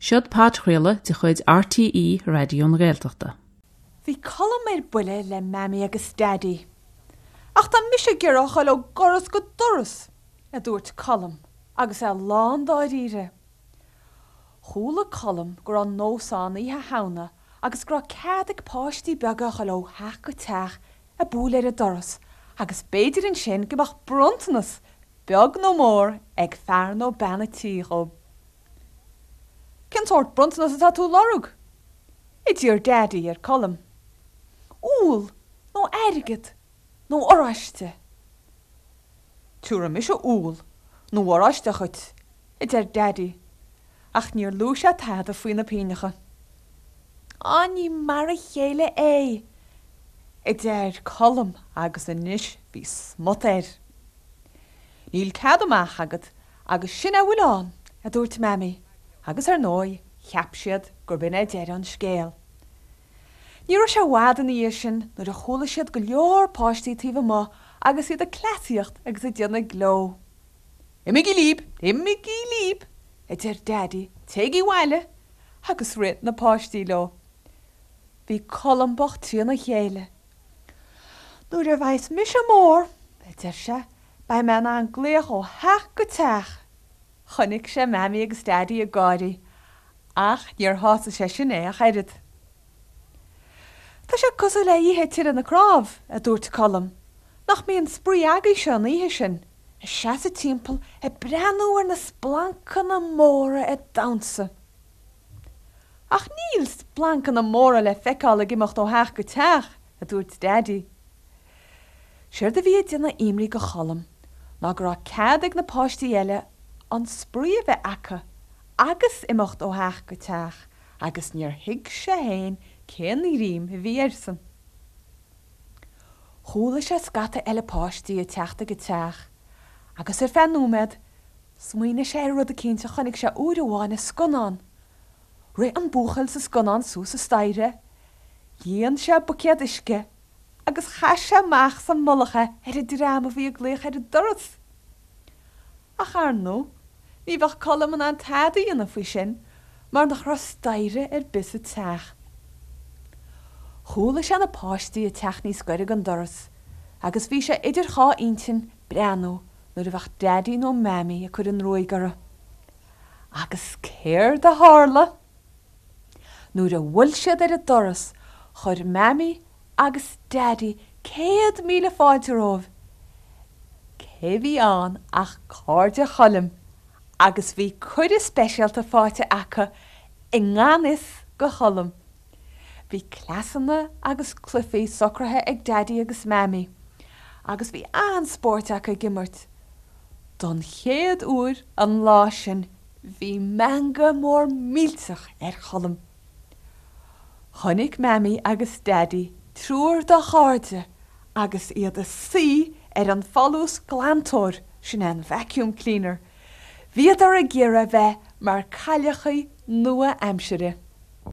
Seod podchraoladh de chuid RTÉ Raidió na Gaeltachta. Bhí Colm ar buile le Mammy agus Daddy. Ach tá mise ag iarraidh a ghoil ó dhoras go doras, a dúirt Colm agus é lán dáiríre. Chuala Colm go raibh nós ann Oíche Shamhna agus go raibh cead ag páistí beaga a ghoil ó theach go teach ag bualadh ar an doras agus b'fhéidir ansin go mbeadh bronntanas, beag nó mór, ag fear nó bean an tí dhóibh. Cén sórt bronntanas atá tú a lorg? a d'iarr Daidí ar Colm. Úll nó airgead nó oráiste. Tiúrfaidh mise úll nó oráiste dhuit, a deir Daidí, ach níor luaigh sé tada faoi na pingneacha. Á, ní mar a chéile é, a deir Colm agus anois bhí smut air. Níl cead amach agat agus sin é a bhfuil ann, a dúirt Mammy, agus ar ndóigh cheap siad gurb in é deireadh an scéil. Ní raibh sé i bhfad ina dhiaidh sin nuair a chuala siad go leor páistí taobh amuigh agus iad ag cleasaíocht agus ag déanamh gleo. Imígí líb! Imígí líb! a deir Daidí, téigí abhaile! Agus rith na páistí leo. Bhí Colm bocht trína chéile. Nuair a bheas mise mór, a deir sé, beidh mé in ann glaoch ó theach go teach! Chonaic sé Mammy agus Daidí ag gáirí ach níor shásaigh sé sin é ach oiread. Tá sé cosúil le Oíche Tire na Cnámh, a dúirt Colm. Nach mbíonn spraoi agaibhse an oíche sin, ag seasamh timpeall ag breathnú ar na splancanna móra ag damhsa? Ach níl splancanna móra le feiceáil ag imeacht ó theach go teach, a dúirt Daidí. Séard a bhí ag déanamh imní go Cholm ná go raibh cead ag na páistí eile an spraoi a bheith acu agus imeacht ó theach go teach agus níor thuig sé féin cén ghreim a bhí airsean. Chuala sé scata eile páistí ag teacht ag an teach agus ar feadh nóiméad smaoinigh sé ar rud eicínt a chonaic sé uair amháin i scannán. Rith an buachaill sa scannán suas an staighre, líon sé buicéad uisce agus chaith sé amach sa mullach é ar an dream a bhí ag glaoch ar an doras. Ach ar ndóigh, ní bheadh Colm in ann tada a dhéanamh faoi sin mar nach raibh staighre ar bith sa teach. Chuala sé na páistí ag teacht níos gaire don doras agus bhí sé idir dhá intinn breathnú nuair a bheadh Daidí nó Mammy ag cur an ruaig orthu. Agus céard a tharla? Nuair a bhuail siad ar an doras, chuir Mammy agus Daidí 100,000 fáilte romhaibh. Cé bhí ann ach cairde Choilm agus bhí cuireadh speisialta faighte acu i ngan fhios go Cholm. Bhí cleasanna agus cluichí socraithe ag Daidí agus Mammy agus bhí an-spóirt acu ag imirt. Don chéad uair an lá sin Bhí meangadh mór millteach ar Cholm. Chonaic Mammy agus Daidí triúr dá chairde agus iad ag suí ar an folúsghlantóir, sin é an vacuum cleaner. Bhíodar ag iarraidh bheith mar cailleachaí nua-aimsire.